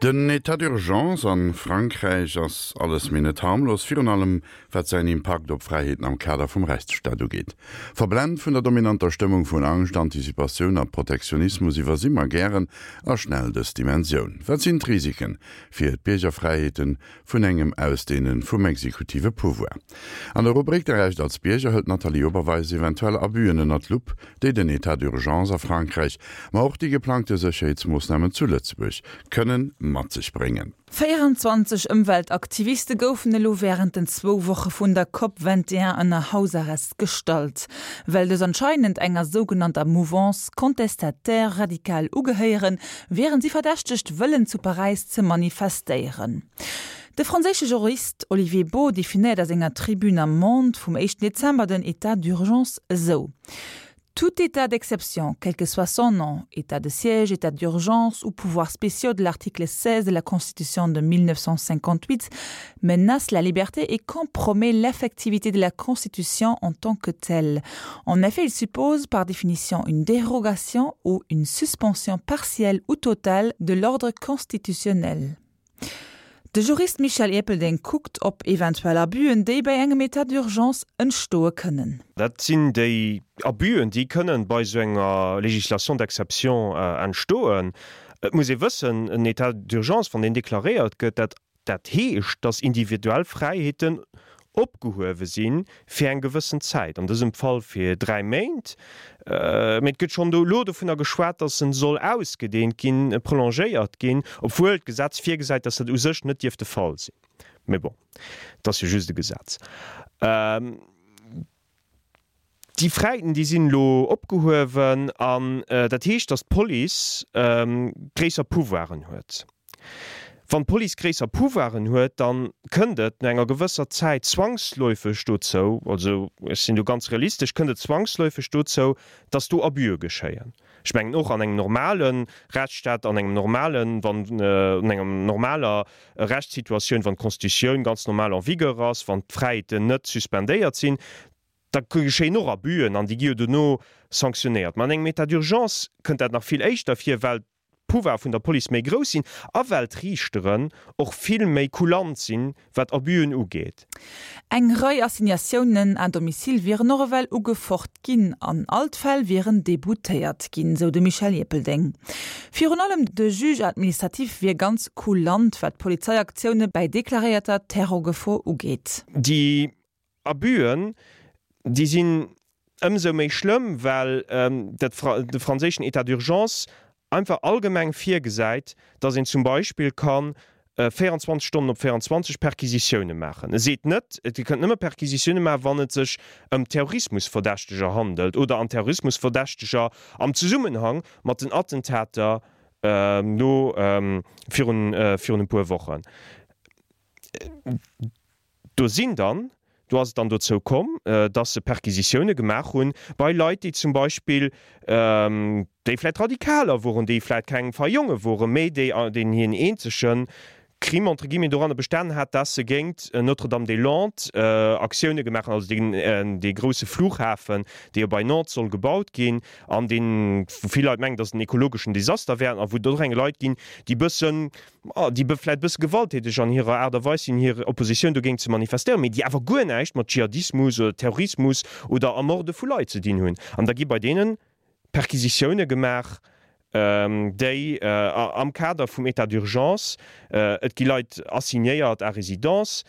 Den Etat d'urgence a Frankräich ass alles mee net harmlos, virun allem wat säin Impakt op Fräiheeten am Kader vum Rechtsstaat ugeet. Verblent vun der dominanter Stëmmung vun Angscht, Antizipatioun a Protektionismus iwwersi mer gären a schnell dës Dimensioun. Wat sinn d'Risiken fir d'Biergerfräiheeten vun engem Ausdehne vum exekutive Pouvoir? An der Rubrik Der Recht als Bierger hëlt d'Nathalie Oberweis eventuell Abüen ënner d'Lupp, déi den Etat d'urgence a Frankräich, ma och déi geplangte Sécherheetsmoossnamen zu Lëtzebuerg kënnen mat sech bréngen. 24 Ëmweltaktiviste goufen elo wärend den zwou Woche vun der Cop 21 ënner Hausarrest gestallt. Well dës anscheinend enger sougenannter Mouvance contestataire radicale ugehéieren, wieren si verdächtegt, wëllen zu Paräis ze manifestéieren. De franséische Jurist Olivier Beaud definéiert a senger Tribune am Monde vum éischten Dezember den État d'urgence esou, Tout état d'exception, quel que soit son nom, état de siège, état d'urgence ou pouvoirs spéciaux de l'article 16 de la Constitution de 1958, menace la liberté et compromet l'effectivité de la Constitution en tant que telle. En effet, il suppose par définition une dérogation ou une suspension partielle ou totale de l'ordre constitutionnel. De Jurist Michel Erpelding kuckt op eventuell Abüen, déi bei engem État d'urgence entstoe kënnen. Dat sinn déi Abüen, déi kënnen bei esou enger Législation d'exception entstoen. Et muss ee wëssen, en État d'urgence, wann deen deklaréiert gëtt, dat Dat heescht, dass individuell Fräiheeten opgehuewe si fir eng gewëssen Zäit, an dësem Fall fir 3 Méint. Mee et gëtt schonn elo dovunner geschwat, dass en soll ausgedeent ginn, prolongéiert ginn, obwuel d'Gesetz virgesäit, dass dat u sech net dierf de Fall sinn. Mee bon, et ass jo just e Gesetz. Déi Fräiten, déi sinn elo opgehuewen an dat heescht, datt d'Police gréisser Pouvoiren huet. Wann d'Police gréisser Pouvoiren huet, da kënnt et no enger gewësser Zäit zwangsläufeg dozou, also ech sinn do ganz realistesch, kënnt et zwangsläufeg dozou, datt do Abüe geschéien. Ech mengen och an engem normale Rechtsstaat, an engem normalen, wann an enger normaler Rechtssituatioun, wann d'Constitutioun ganz normal en vigueur ass, wann d'Fräiheeten net suspendéiert sinn, da geschéien och Abüen an déi gi jo dono sanktionéiert. Mä an engem État d'urgence kënnt dat nach vill éischter vir, well d'Pouvoire vun der Police méi grouss sinn a well d'Riichteren och vill méi kulant sinn, wat Abüen ugeet. Eng Rei Assignatiounen à domicile wieren och ewell ugefocht ginn an all d'Fäll wieren deboutéiert ginn, sou de Michel Ierpeldeng. Virun allem de Juge administratif wier ganz kulant, wat Polizeiaktioune bäi deklaréierter Terrorgefor ugeet. Déi Abüen, déi sinn ëmsou méi schlëmm, well dat de franséischen État d'urgence einfach allgemeng virgesäit, datt een zum Beispill ka 24 Stonnen op 24 Perquisitioune maachen. E seet net, et Dir kënnt nëmme Perquisitioune maachen, wann et sech ëm Terrorismusverdächteger handelt oder an Terrorismusverdächteger am Zesummenhang mat den Attentater no virun virun e puer Wochen. Do sinn dann, do ass et dann dozou komm, dass se Perquisitioune gemaach hunn bei Leit, déi zum Beispill, déi vläicht Radikaler woren, déi vläicht keng fei Jonge woren, mä déi, deenen hiren eenzege Crime entre guillemets doranner bestanen hat, dass se géint Notre-Dame-des-Landes Aktioune gemaach hunn, also deen, dee grousse Flughafen, dee jo bei Nantes soll gebaut ginn an deen, wou vill Leit mengen, dass et en ekologeschen Desaster wär an wou et och eng Leit ginn, déi bëssen, déi vläit e bësse gewalttäteg an hirer Aart a Weis sinn, hir Oppositioun dogéint ze manifestéieren, mee déi awer guer näischt mat Dschihadismus oder Terrorismus oder Ermorde vu Leit ze dinn hunn. An da gi bei deene Perquisitioune gemaach, déi am Kader vum État d'urgence, et gi Leit assignéiert à résidence,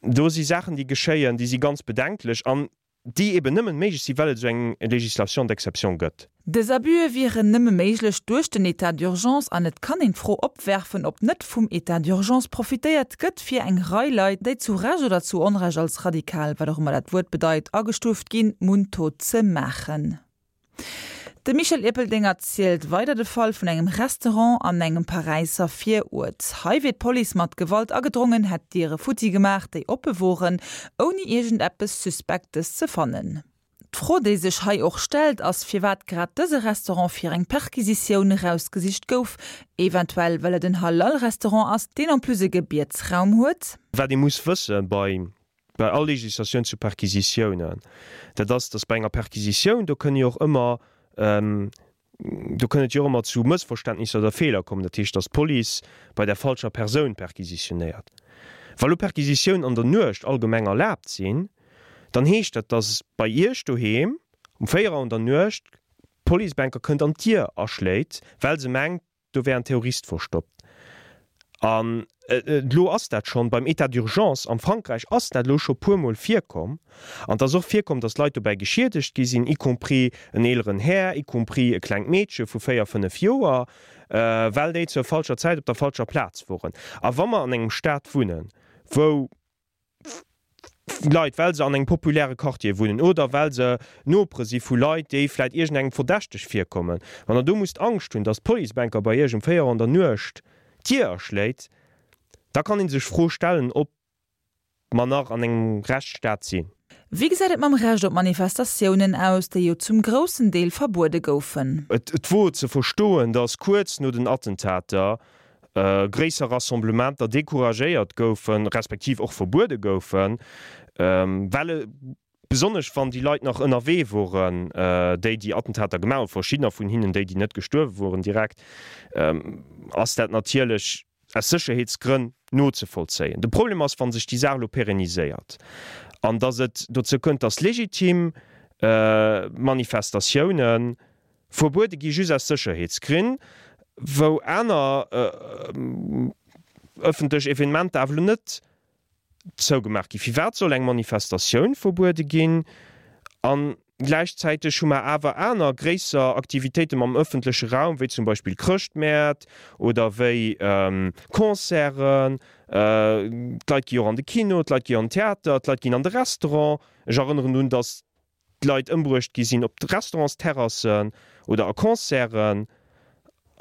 do si Saachen, déi geschéien, déi si ganz bedenklech. An déi eben nëmmen méiglech sinn, well et esou eng Législation d'exception gëtt. Dës Abüe wieren nëmme méiglech duerch den État d'urgence an et kann een d'Fro opwerfen, ob net vum État d'urgence profitéiert gëtt, fir eng Rei Leit, déi zu Recht oder zu Onrecht als radikal, wat och ëmmer dat Wuert bedeit, agestuuft ginn, mundtot ze maachen. De Michel Erpelding erzielt weider de Fall vun engem Restaurant an engem Paräisser Viruert. Hei wier d'Police mat Gewalt agedrongen, hätt d'Diere futti gemaach, déi oppe woren, ouni iergendeppes Suspektes ze fannen. D'Fro, déi sech hei och stellt, ass, firwat grad dëse Restaurant fir eng Perquisitioun erausgesicht gouf. Eventuell well et en Halal-Restaurant ass, deen en plus e Gebietsraum huet? Wat ee muss wësse bei Bei all Législatioun zu Perquisitiounen, dat ass, dass bei enger Perquisitioun, do kënne jo och ëmmer. Do kënn et jo och ëmmer zu Mëssverständnisser oder Feeler kommen, dat heescht, datt d'Police bei der falscher Persoun perquisitionéiert. Wa lo Perquisitiounen an der Nuecht allgemeng erlaabt sinn, dann heescht dat, datt bei Iech doheem um 4 Auer an der Nuecht d'Police bänker kënnt an d'Dier aschléit, well se mengt, do wär en Terrorist verstoppt. An elo ass dat schonn beim État d'urgence am Frankräich ass dat elo scho puermol virkomm. An et ass och virkomm, datt Leit dobäi geschiedegt gi sinn, y compris en eeleren Här, y compris e klengt Meedche vu 4, 5 Joer, well déi zur falscher Zäit op der falscher Plaz woren. A wa mer an engem Staat wunnen, wou Leit, well se an engem populäre Quartier wunnen oder well se Nopere si vu Leit, déi vläit iergendengem verdächteg virkommen, wann Der do musst Angscht hunn, datt d'Policebanker bei Iech um 4 Auer an der Nuecht d'Dier aschléit, da kann ee sech d'Fro stellen, ob mer nach an engem Rechtsstaat sinn. Wéi gesäit et mam Recht op Manifestatiounen aus, déi jo zum groussen Deel verbuede goufen? Et wor ze verstoen, datt kuerz no den Attentater gréisser Rassemblementer decouragéiert goufen, respektiv och verbuede goufen, well besonnesch wann déi Leit nach ënnerwee woren, déi déi Attentater gemaach hunn, verschiddener vun hinnen, déi déi net gestuerwe woren direkt, ass dat natierlech aus Sécherheetsgrënn nozevollzéien. De Problem ass, wa sech déi Saach elo pérenniséiert an datt et dozou kënnt, datt legitim Manifestatiounen Verbuede gi just aus Sécherheetsgrinn, wou aner ëffentlech Evenementer awer elo net zougemaach ginn. Firwat soll eng Manifestatioun verbuede ginn a gläichzäiteg hu mer awer aner gréisser Aktivitéiten am ëffentleche Raum, wéi zum Beispill Chrëschtmäert oder wéi Concerten, d'Leit gi jo och an de Kino, d'Leit gi an den Theater, d'Leit ginn an de Restaurant. Ech erënneren drun, datt Leit ëmbruecht gi sinn op Restaurantsterrassen oder a Concerten.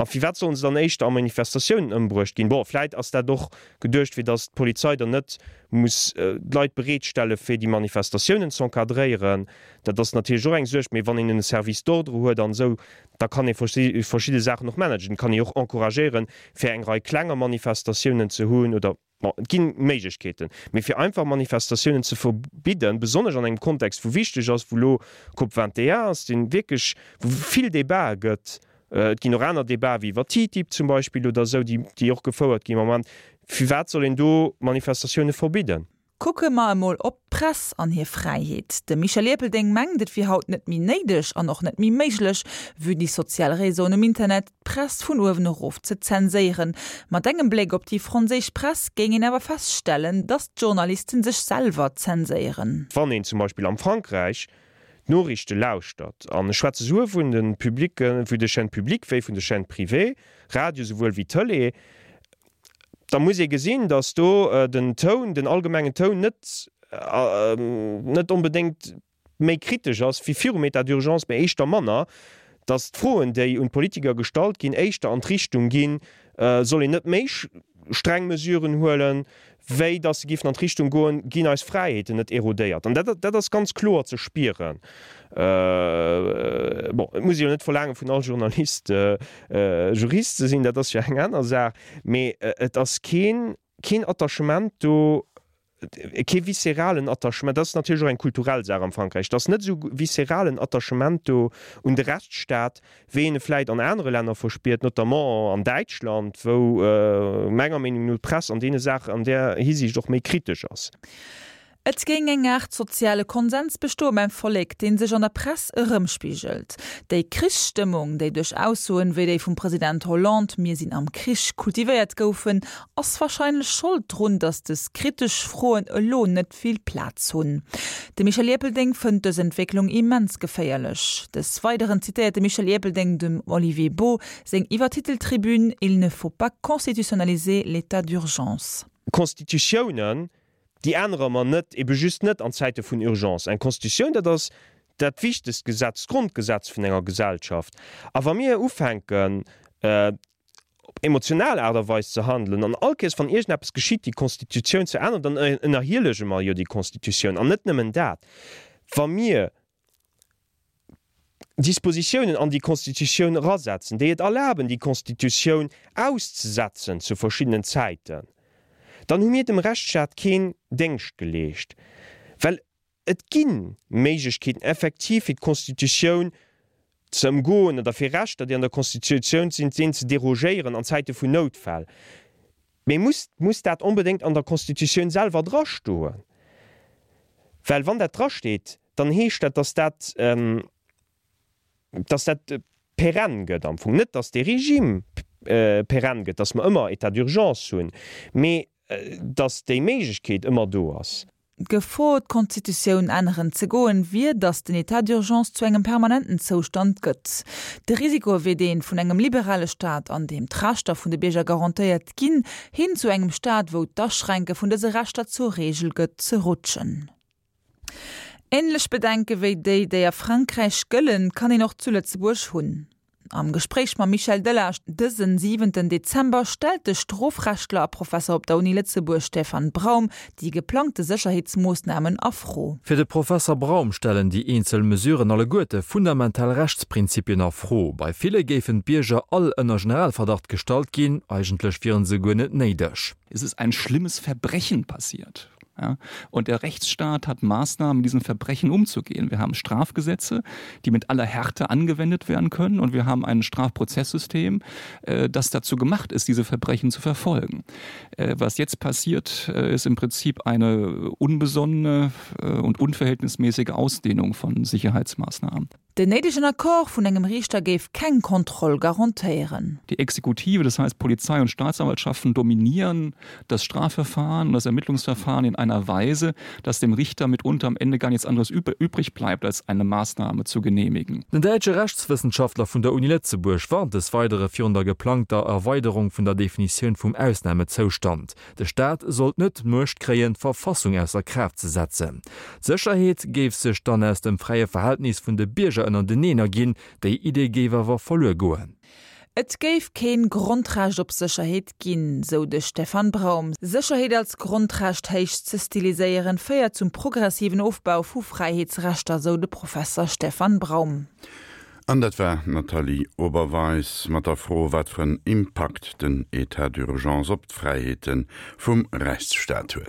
A firwat sollen se dann éischter a Manifestatiounen ëmbruecht ginn? Bon, vläit ass dat och geduecht, fir datt d'Polizei dann net muss Leit bereetstelle fir déi Manifestatiounen z'encadréieren. Dat ass natierlech och eng Suerg. Mee wann een en Service d'ordre huet an esou, da kann ee verschidde Saachen och managen. Et kann ee och encouragéieren, fir eng Rei klenger Manifestatiounen ze hunn oder. Bon, et gi Méiglechkeeten, mee fir einfach Manifestatiounen ze verbidden, besonnesch an engem Kontext, wou wichteg ass, wou elo Cop 21 ass, dee wierklech, wou vill Debatë gëtt, et ginn och aner Debatë wéi iwwer TTIP zum Beispill oder esou, déi, déi och gefouert ginn am Moment, firwat soll een do Manifestatioune verbidden? Kucke mer emol op d'Press an hir Fräiheet. De Michel Erpelding mengt, et wier haut net méi néideg an och net méi méiglech, vue déi sozial Réseauen um Internet, d'Press vun uewen erof ze zenséieren. Mat engem Bléck op déi franséisch Press géing een awer feststellen, datt d'Journalisten sech selwer zenséieren. Wann een zum Beispill am Frankräich d'Noriichte lauschtert, an ech schwätze souwuel vun de publicken, vun de Chaînes publiques wéi vun de Chaînes privées, Radio souwuel wéi Tëlee, da muss ee gesinn, datt do den Toun, den allgemengen Toun net, net onbedéngt méi kritesch ass wéi virum État d'urgence, mä éischter manner, datt d'Froen, déi un d'Politiker gestallt ginn, éischter an d'Richtung ginn, soll een net méi streng Mesuren huelen, wéi datt se géifen an d'Richtung goen, ginn eis Fräiheeten net erodéiert. An dat, dat ass ganz kloer ze spieren. Bon, et muss ee jo net verlaange vun all Journalist, Jurist ze sinn, dat ass jo eng aner Saach, mee et ass keen, keen Attachement do, kee visceralen Attachement, dat ass natierlech och eng kulturell Saach am Frankräich, et ass net esou visceralen Attachement do un de Rechtsstaat, wéi een e vläit an anere Länner verspiert, notamment an Däitschland, wou menger Meenung no d'Press an deene Saachen an där Hisiicht och méi kritesch ass. Et géing eng Aart soziale Konsens bestoe beim Vollek, dee sech an der Press erëmspigelt. Déi Krichsstëmmung, déi duerch Aussoen wéi déi vum President Hollande, Mir sinn am Krich, kultivéiert goufen, ass warscheinlech Schold drun, datt des kritesch Froen elo net vill Plaz hunn. De Michel Erpelding fënnt dës Entwécklung immens geféierlech. Des Weideren zitéiert de Michel Erpelding dem Olivier Baux seng iwwertitelt Tribün Il ne faut pas constitutionnaliser l'état d'urgence. Constitutiounen Déi ännere mer net, ebe just net an Zäite vun Urgence. Eng Constitutioun, dat ass dat wichtegst Gesetz, d'Grondgesetz vun enger Gesellschaft. A wa mir ufänken, op emotional Aart a Weis ze handelen an all Kéiers, wann iergendeppes geschitt, déi Constitutioun ze änneren, dann ënnerhielege mer jo déi Constitutioun. An net nëmmen dat, wa mir Dispositiounen an déi Constitutioun erasetzen, déi et erlaben, déi Constitutioun auszesetzen zu verschiddenen Zäiten, dann hu mir dem Rechtsstaat keen Déngscht geleescht, well et gi Méiglechkeeten effektiv fir d'Constitutioun. Ze ëmgoen oder fir Rechter, déi an der Constitutioun sinn, sinn ze derogéieren an Zäite vun Noutfäll. Mee muss, muss dat onbedéngt an der Constitutioun selwer drastoen? Well wann dat drasteet, dann heescht dat, dass dat, dass dat perenn gëtt am Fong. Net, dass dee Regime perenn gëtt, dass mer ëmmer État d'urgence hunn, mee dass déi Méiglechkeet ëmmer do ass. D'Gefor, d'Constitutioun änneren ze goen, wier, datt den État d'urgence zu engem permanenten Zoustand gëtt. De Risiko wier dee vun engem liberale Staat, an deem d'Rechter vun de Bierger garantéiert ginn, hin zu engem Staat, wou d'Aschränke vun dëse Rechter zur Reegel gëtt, ze rutschen. Änlech Bedenke wéi déi, déi a Frankräich gëllen, kann een och zu Lëtzebuerg hunn. Am Gespréich mam Michel Delage dësen siwenten Dezember stellt de Strofrechtler a Professer op der Uni Lëtzebuerg Stefan Braum déi geplangte Sécherheetsmoossnamen a Fro. Fir de Professer Braum stellen déi eenzel Mesuren alleguerte fundamental Rechtsprinzipien a Fro. Bei ville géifen d'Bierger all ënner Generalverdacht gestallt ginn, eigentlech wieren se guer net néideg. Es ist ein schlimmes Verbrechen passiert. Ja? Und der Rechtsstaat hat Maßnahmen, mit diesen Verbrechen umzugehen. Wir haben Strafgesetze, die mit aller Härte angewendet werden können und wir haben ein Strafprozesssystem, äh, das dazu gemacht ist, diese Verbrechen zu verfolgen. Äh, was jetzt passiert, äh, ist im Prinzip eine unbesonnene äh, und unverhältnismäßige Ausdehnung von Sicherheitsmaßnahmen. Den néidegen Accord vun engem Riichter géif keng Kontroll garantéieren. Die Exekutive, das heißt Polizei und Staatsanwaltschaften dominieren das Strafverfahren und das Ermittlungsverfahren in einer Weise, dass dem Richter mitunter am Ende gar nichts anderes übrig bleibt, als eine Maßnahme zu genehmigen. Den däitsche Rechtswëssenschaftler vun der Uni Lëtzebuerg warnt des Weidere virun der geplangter Erweiderung vun der Definitioun vum Ausnamezoustand. De Staat sollt net d'Muecht kréien, d'Verfassung ausser Kraaft ze setzen. D'Sécherheet géif sech dann aus dem fräie Verhältnis vun de Bierger ënnerteneen erginn. Déi Idee géif awer verluer goen. Et géif keen Grondrecht op Sécherheet ginn, sou de Stefan Braum. Sécherheet als Grondrecht héich ze stiliséieren, féiert zum progressiven Ofbau vu Fräiheetsrechter, sou de Professer Stefan Braum. An dat war d'Nathalie Oberweis mat der Fro, wat fir en Impakt den Etat d'urgence op d'Fräiheete vum Rechtsstaat huet.